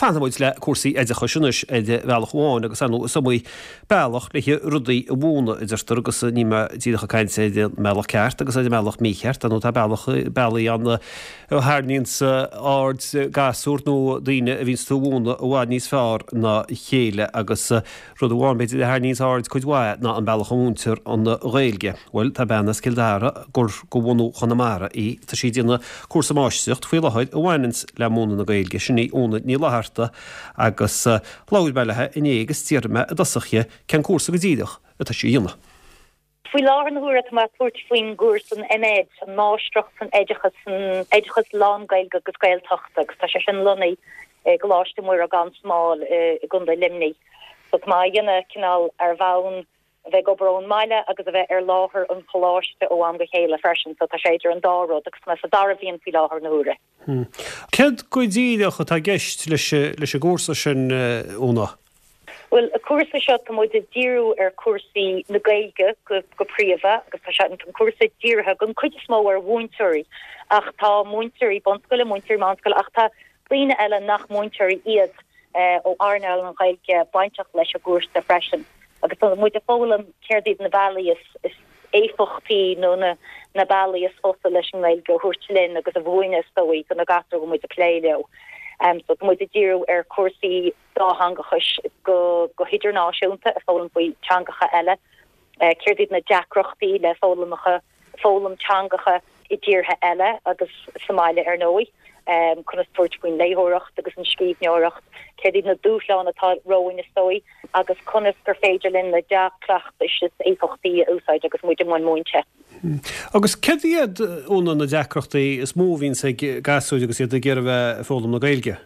Fanfaidh muid le cúrsaí oideachais anois ar bhealach amháin agus ar ndóigh is iomaí bealach le rudaí a mhúineadh a deirtear agus níl mé díreach ag caint ar an mbealach ceart agus ar an mbealach mícheart, ar ndóigh tá bealach, bealaí ann a tharraingíonns aird gasúr nó daoine a bhíonns tú a mhúineadh i bhfad níos fearr ná a chéile agus rud amháin b'fhéidir a tharraingíonns aird cuid mhaith ná an bealach a mhúintear an Ghaeilge. Bhuel, tá bean as Cill Dara gur de bhunú Chonamara í. Tá sí ag déanamh cúrsa máistreacht faoi láthair a bhaineanns le múineadh na Gaeilge. Sin í Úna Ní Fhlatharta agus labhair mé léi inné agus d'fhiafraigh mé i dtosach dhi cén cúrsa go díreach atá sí a dhéanamh. Faoi láthair na huaire tá mé ag tabhairt faoin gcúrsa an MEd, an Máistreacht san Oideachas, san Oideachas Lán-Ghaeilge agus Gaeltachta agus tá sé sin lonnaithe i gColáiste Mhuire gan Smál i gContae Luimnigh. So tá mé á dhéanamh cineál ar bhonn a bheith ag obair ón mbaile agus a bheith ar láthair an choláiste ó am go chéile freisin so tá sé idir an dá rud agus tá mé sa dara bhliain faoi láthair na huaire. Céard go díreach atá i gceist leis an gcúrsa sin, Úna? Bhuel, an cúrsa seo tá muid ag díriú ar chúrsaí na Gaeilge go príomha agus tá sé an cúrsa dírithe den chuid is mó ar mhúinteoirí ach tá múinteoirí bunscoile, múinteoirí meánscoile ach tá daoine eile nach múinteoirí iad ó earnáil na Gaeilge bainteach leis an gcúrsa freisin agus tá muid ag foghlaim céard iad na bealaí is éifeachtaí nó na na bealaí is fusa leis an nGaeilge a thabhairt linn agus a mhúineadh is dóigh do na gasúir a bhfuil muid ag plé leo. So tá muid ag díriú ar chúrsaí dátheangachais go go hidirnáisiúnta, ag foghlaim faoi teangacha eile, céard iad na deacrachtaí le foghlaimeacha foghlaim teangacha i dtíortha eile agus sa mbaile ar ndóigh, conas tabhairt faoin léitheoireacht agus an scríbhneoireacht, céard iad na dúshláin atá romhainn is dóigh agus conas gur féidir linn na dea-chleachtais is éifeachtaí a úsáid agus muid i mbun múinte. Agus céard iad, Úna, na deacrachtaí is mó a bhíonns ag gasúir agus iad ag iarraidh a bheith ag foghlaim na Gaeilge?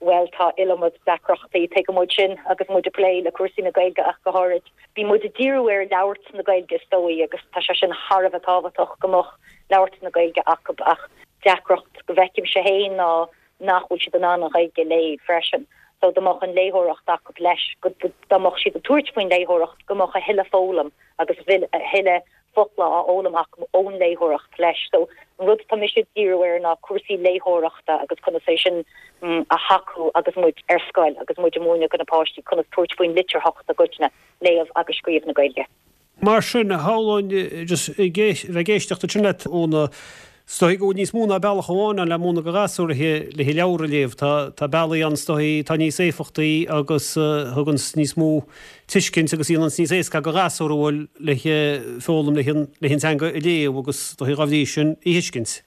Bhuel, tá iliomad deacrachtaí, tuigeann muid sin agus muid ag plé le cúrsaí na Gaeilge ach go háirid. Bíonn muid ag díriú ar labhairt na Gaeilge is dóigh agus tá sé sin thar a bheith tábhachtach go mbeadh labhairt na Gaeilge acu ach deacracht go bhfeicimse féin ná nach bhfuil siad in ann an Ghaeilge a léamh freisin. So dá mbeadh an léitheoireacht acu leis, dá mbeadh siad ag tabhairt faoin léitheoireacht go mbeadh a thuilleadh foghlaim agus a thuilleadh focla á fhoghlaim acu ón léitheoireacht leis. So an rud atá mise ag díriú air ná cúrsaí léitheoireachta agus conas é sin a thacú agus muid ar scoil agus muid ag múineadh do na páistí conas tabhairt faoin litearthacht i gcoitinne, léamh agus scríobh na Gaeilge. Mar sin, shamhlóinn just ag bheith ag éisteacht ansin leat Úna, Is dóigh go bhfuil níos mó ná bealach amháin ann le múineadh do ghasúir le leabhar a léamh. Tá bealaí ann is dóigh atá níos éifeachtaí agus a thuganns níos mó tuiscint agus a dhéananns níos éasca do ghasúr a bhfuil le foghlaim le an teanga a léamh agus is dóigh dá bhrí sin í a thuiscint.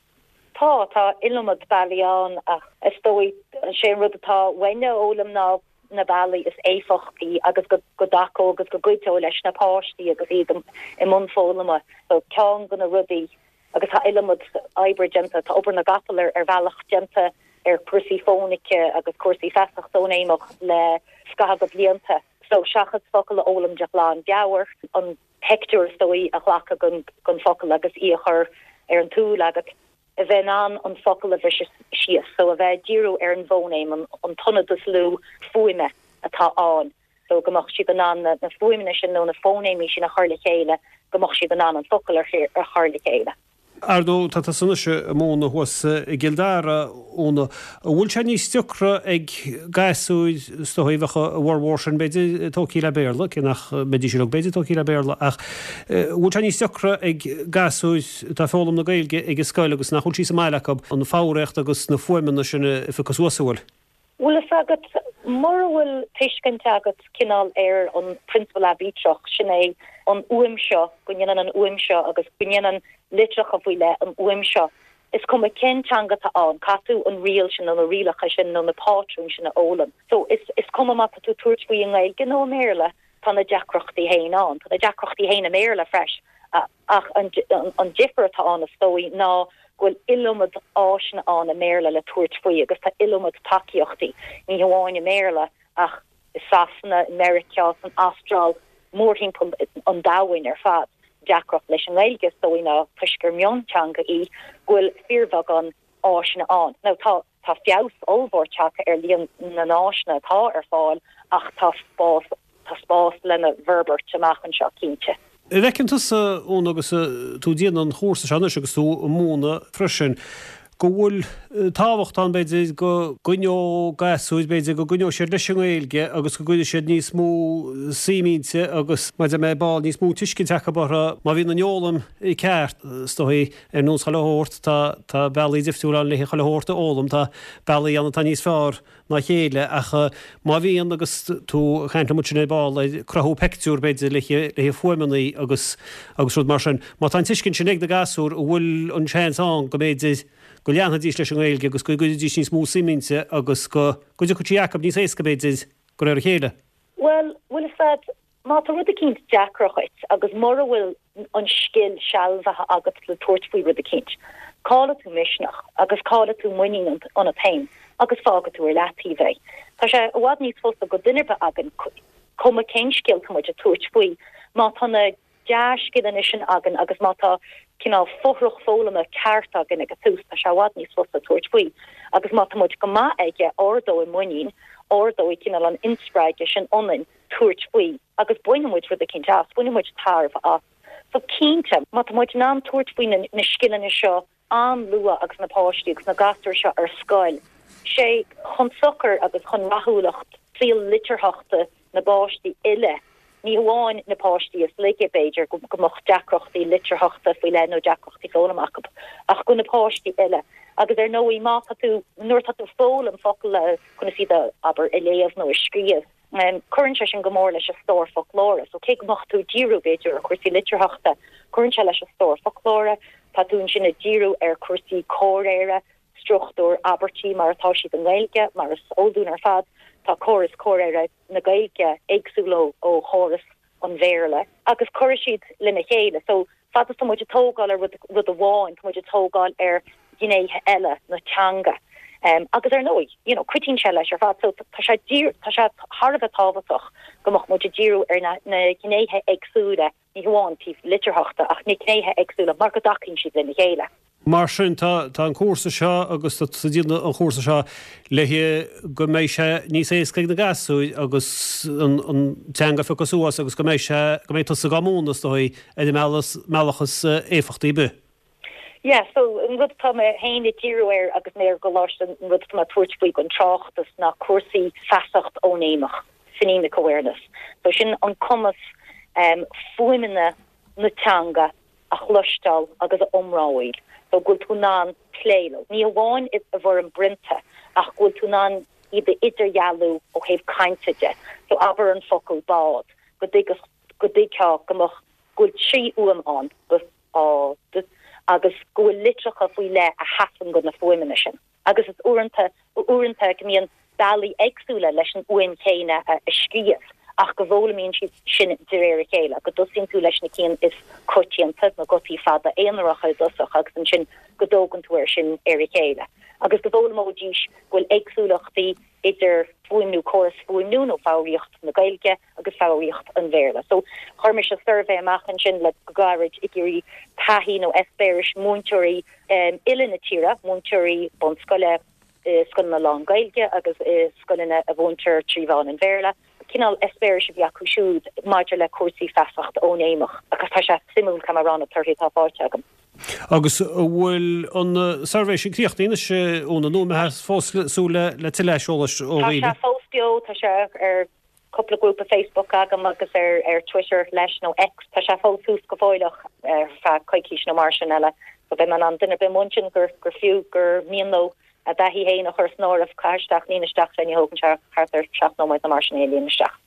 Tá, tá iliomad bealaí ann ach is dóigh sé an rud atá uainne a fhoghlaim ná na bealaí is éifeachtaí agus go dtacódh agus go gcuideodh leis na páistí agus iad i mbun foghlama. So ceann de na rudaí Agus tá iliomad oibre déanta, tá obair na gcapall ar bhealach déanta ar chúrsaí fónaice agus cúrsaí feasacht fhóinéimeach le scaitheamh de bhlianta. So seachas focal a fhoghlaim de ghlanmheabhair, an pictiúr is dóigh a ghlacadh den focal agus í a chur ar an tsúil agat, a bheith in ann an focal a bhriseadh síos, so a bheith ag díriú ar an bhfóinéim, an t-ionad is lú fuaime atá ann. so go mbeadh siad in ann na fuaimeanna sin nó na fóinéimí sin a chur le chéile, go mbeadh siad in ann an focal a chur le chéile. Ar ndóigh, tá tusa anois ag múineadh thuas i gCill Dara, Úna. An bhfuil sé níos deacra ag gasúir, is dóigh, bheadh a bhformhór sin, b'fhéidir, tógtha le Béarla, cé nach mbeidís uilig, b'fhéidir, tógtha le Béarla, ach an bhfuil sé níos deacra ag gasúir atá ag foghlaim na Gaeilge ag an scoil agus nach bhfuil sí sa mbaile acu, an foghraíocht agus na fuaimeanna sin a phiocadh suas, an bhfuil? Bhfuil fhios agat, mura bhfuil tuiscint agat cineál ar an prionsabal aibítreach, sin é an fhuaim seo, go ndéanann an fhuaim seo agus go ndéanann litreacha faoi leith an fhuaim seo, is cuma cén teanga atá ann, caithfidh tú an riail sin nó na rialacha sin nó na pátrúin sin a fhoghlaim. So, is is cuma má tá tú ag tabhairt faoi i nGaeilge nó i mBéarla, tá na deacrachtaí féin ann. Tá na deacrachtaí féin i mBéarla freis. Ach an difear atá ann, is dóigh, ná go bhfuil iliomad áiseanna ann i mBéarla le tabhairt faoi agus tá iliomad tacaíochtaí, ní hamháin i mBéarla ach i Sasana, i Meiriceá, san Astráil, mórthimpeall an domhain ar fad. Deacracht leis an nGaeilge, is dóigh, ná toisc gur mionteanga í, go bhfuil fíorbheagán áiseanna ann. Now tá tá feabhas ollmhór tagtha ar líon na n-áiseanna atá ar fáil ach tá spás tá spás lena bhforbairt amach anseo cinnte. An bhfeiceann tusa, Úna, agus tú ag déanamh an chúrsa seo anois agus tú ag múineadh freisin, Go bhfuil tábhacht ann, b'fhéidir, go gcoinneodh gasúir, b'fhéidir, go gcoinneodh siad leis an nGaeilge agus go gcuirfidh siad níos mó suim inti agus, mar a deir mé ar ball, níos mó tuiscint acu uirthi má bhíonn an fhoghlaim ceart, is dóigh, ar nós chuile shórt, tá, tá bealaí difriúla ann le chuile shórt a fhoghlaim, tá bealaí ann atá níos fearr ná a chéile ach má bhíonn agus tú ag caint liom ansin ar ball ar cruthú peictiúr b'fhéidir le le fuaimeanna agus agus rud mar sin, má tá an tuiscint sin ag na gasúir an bhfuil an seans ann go mb'fhéidir go leanfaidís leis an nGaeilge agus go gcuirfidís níos mó suim inti agus go go dtiocfadh sí acu níos éasca b'fhéidir de réir a chéile? Bhuel, bhfuil a fhios agat, Má tá rud eicínt deacair dhuit agus mura bhfuil an scil sealbhaithe agat le tabhairt faoi rud eicínt, caillfidh tú misneach agus caillfidh tú muinín ionat féin agus fágfaidh tú ar leataobh é. Tá sé i bhfad níos fusa go duine ar bith againn, cuma cén scil tá muid ag tabhairt faoi, má tá na dea-scileanna sin againn agus má tá cineál fothrach foghlama ceart againn ag an tús, tá sé i bhfad níos fusa tabhairt faoi. Agus má tá muid go maith aige, ardóidh muinín, ardóidh cineál an inspreagadh sin ionainn. tabhairt faoi agus bainfidh muid rud eicínt as, bainfidh muid tairbhe as. So cinnte, má tá muid in ann tabhairt faoi na scileanna seo an-luath agus na páistí agus na gasúir seo ar scoil, sé chun sochair agus chun rathúlacht saol litearthachta na bpáistí uile, ní hamháin na páistí is laige, b'fhéidir, go mbeadh deacrachtaí litearthachta faoi leith nó deacrachtaí foghlama acu, ach go na páistí uile. Agus ar ndóigh, má tá tú, nuair atá tú ag foghlaim focal le conas iad a, abair, a léamh nó a scríobh, Cuireann sé sin go mór leis an stór foclóra. So cé go mbeadh tú ag díriú, b'fhéidir, ar chúrsaí litearthachta, cuireann sé leis an stór foclóra. Tá tú ansin ag díriú ar chúrsaí comhréire, struchtúr abairtí mar atá siad i nGaeilge, mar is eol dúinn ar fad, tá córas comhréire na Gaeilge éagsúil ó chóras an Bhéarla agus cuirfidh siad lena chéile. So, fad is tá muid ag tógáil ar rud, rud amháin, tá muid ag tógáil ar ghnéithe eile na teanga. Agus ar ndóigh, you know, cuidíonn sé leis ar fad. So, tá sé dír, tá sé thar a bheith tábhachtach go mbeadh muid ag díriú ar na, na gnéithe éagsúla, ní hamháin taobh litearthachta ach na gnéithe éagsúla mar go dtacaíonn siad lena chéile. Mar sin, tá an cúrsa seo agus tá tú ag déanamh an chúrsa seo le go mbeidh sé níos éasca ag na gasúir agus an teanga a phiocadh suas agus go mbeidh sé, go mbeidh tusa dhá múineadh, is dóigh, ar an mbealach is éifeachtaí ar bith. Yeah, so an rud atá mé féin ag díriú air agus mé ar an gcoláiste, an rud atá mé ag tabhairt faoi don tráchtas ná cúrsaí feasacht fhóinéimeach, phonemic awareness. So sin an cumas fuaimeanna na teanga a chloisteáil agus a iomramháil, so go bhfuil tú in ann plé leo, ní hamháin i bhfoirm prionta, ach go bhfuil tú in ann iad a idirdhealú ó thaobh cainte de. So abair an focal bád, go dtuigfeadh, go dtuigfeá go mbeadh, go bhfuil 3 fhuaim ann, b, á, d, agus go bhfuil litreacha faoi leith a sheasann do na fuaimeanna sin. agus is uaireanta, uaireanta go mbíonn bealaí éagsúla leis an fhuaim chéanna a scríobh ach go bhfoghlaimíonn siad sin de réir a chéile, go dtosaíonn tú leis na cinn is coitianta, na gutaí fada aonaracha i dtosach agus ansin go dtógann tú air sin ar a chéile. Agus go bhfoghlaimeoidís go bhfuil éagsúlachtaí idir fuaimniú, córas fuaimniú nó foghraíocht na Gaeilge agus foghraíocht an Bhéarla. So, chuir mise suirbhé amach ansin le go gairid ag iarraidh taithí nó eispéiris múinteoirí uile na tíre, múinteoirí bunscoile i scoileanna lán-Ghaeilge agus i scoileanna a mhúintear trí mheán an Bhéarla, cineál eispéiris a bhí acu siúd maidir le cúrsaí feasacht fhóinéimeach agus tá sé suimiúil, caithfidh mé a rá, na torthaí atá faighte agam. Agus an bhfuil an suirbhé sin críochnaithe anois, Úna, nó an mbeifeá fós ag súil le tuilleadh aiseolais ó dhaoine? Tá sé fós beo, tá sé ar cúpla grúpa Facebook agam agus ar ar Twitter leis, nó X. Tá sé fós suas go fóilleach ar feadh coicís nó mar sin eile. So beidh mé in ann duine ar bith amuigh ansin gur gur fiú gur mian leo a dtaithí féin a chur san áireamh, caith isteach, líon isteach é, ní thógann sé thart ar 7 nóiméad nó mar sin é a líonadh isteach.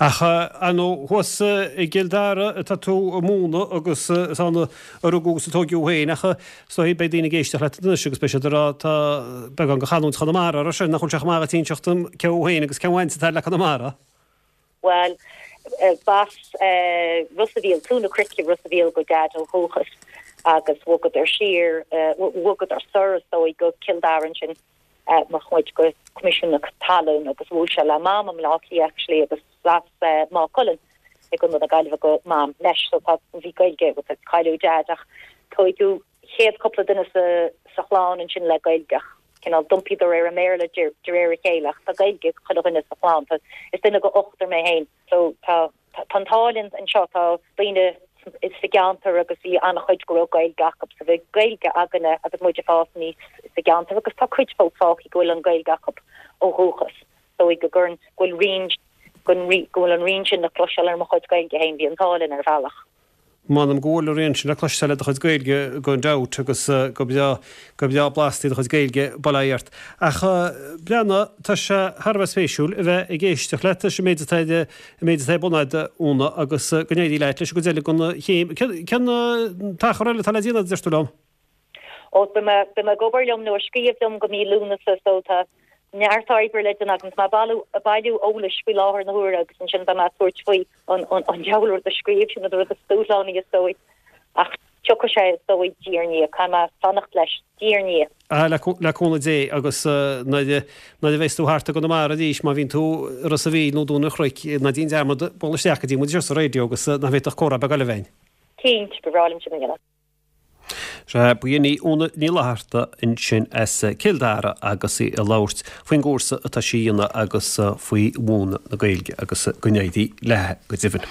Ach ar ndóigh thuas i gCill Dara atá tú ag múineadh agus is ann a rugadh agus a tóigeadh thú féin ach is dóigh beidh daoine ag éisteacht leat anois agus beidh siad ag rá tá beagán de chanúint Chonamara air sin, nach bhfuil sé chomh maith dhuit inseacht dom cé thú féin agus cén bhaint atá le Conamara? Bhuel, b'as Ros a' Mhíl, Cluain na Cnoice, Ros a' Mhíl do Dhaid ó dhúchas agus bhogadar siar, bhogadar soir is dóigh go Cill Dara ansin. Mar chuid de Choimisiún na Talún agus bhuail sé le Mam i mBleá Cliath actually agus as Maigh Cuilinn i gContae na Gaillimhe do Mam leis so tá bhí Gaeilge agus cailleadh Deaid ach tóigeadh chéad cúpla duine sa sa chlann ansin le Gaeilge ach cineál d'iompaíodar ar an mBéarla de de réir a chéile ach tá Gaeilge ag chuile dhuine sa chlann tá is duine de ochtar mé féin so tá tá an t-ádh linn anseo tá daoine san. sa gceantar agus bhí an-chuid go raibh Gaeilge acu so bhí Gaeilge againne agus muid ag fás aníos sa gceantar agus tá cuid fós fágtha go bhfuil an Ghaeilge acu ó dhúchas. Dóigh go gcuireann, go bhfuil rian, go bhfuil an rian sin le cloisteáil ar mo chuid Gaeilge féin, bhí an t-ádh linn ar bhealach. M'anam go bhfuil an rian sin le cloisteáil ar do chuid Gaeilge gan dabht agus go breá, go breá blasta í do chuid Gaeilge, bail ó Dhia ort. Ach breathnaigh, tá sé thar a bheith spéisiúil a bheith ag éisteacht leat leis an méid atá ar, an méid atá ar bun agat, Úna, agus go n-éirí leat leis an gcuid eile den chéim. Cén t-achar eile atá le déanamh, deir tú liom? Ó, beidh mé, beidh mé ag obair liom nó ag scríobh liom go mí Lúnasa so tá neart oibre le déanamh agam. Tá mé ag bailiú, ag bailiú eolais faoi láthair na huaire agus ansin beidh mé ag tabhairt faoi an, an, an diabhal rud a scríobh, sin an rud is dúshlánaí is dóigh. Ach tiocfaidh sé is dóigh diaidh ar ndiaidh, caithfidh mé fanacht leis, diaidh ar ndiaidh. Ah, le, le cúnamh Dé agus nuair a, nuair a bheas tú thart i gConamara arís, má bhíonn tú i Ros a' Mhíl nó Dún an Chnoic, ná déan dearmad bualadh isteach go dtí muid anseo sa raidió agus nach bhféadfadh comhrá beag eile a bheith againn. Cinnte, ba bhreá liom sin a dhéanamh. Sea, ba shin í Úna Ní Fhlatharta ansin as Cill Dara agus í ag labhairt faoin gcúrsa atá sí a dhéanamh agus faoi mhúineadh na Gaeilge agus go n-éirí léi go deimhin.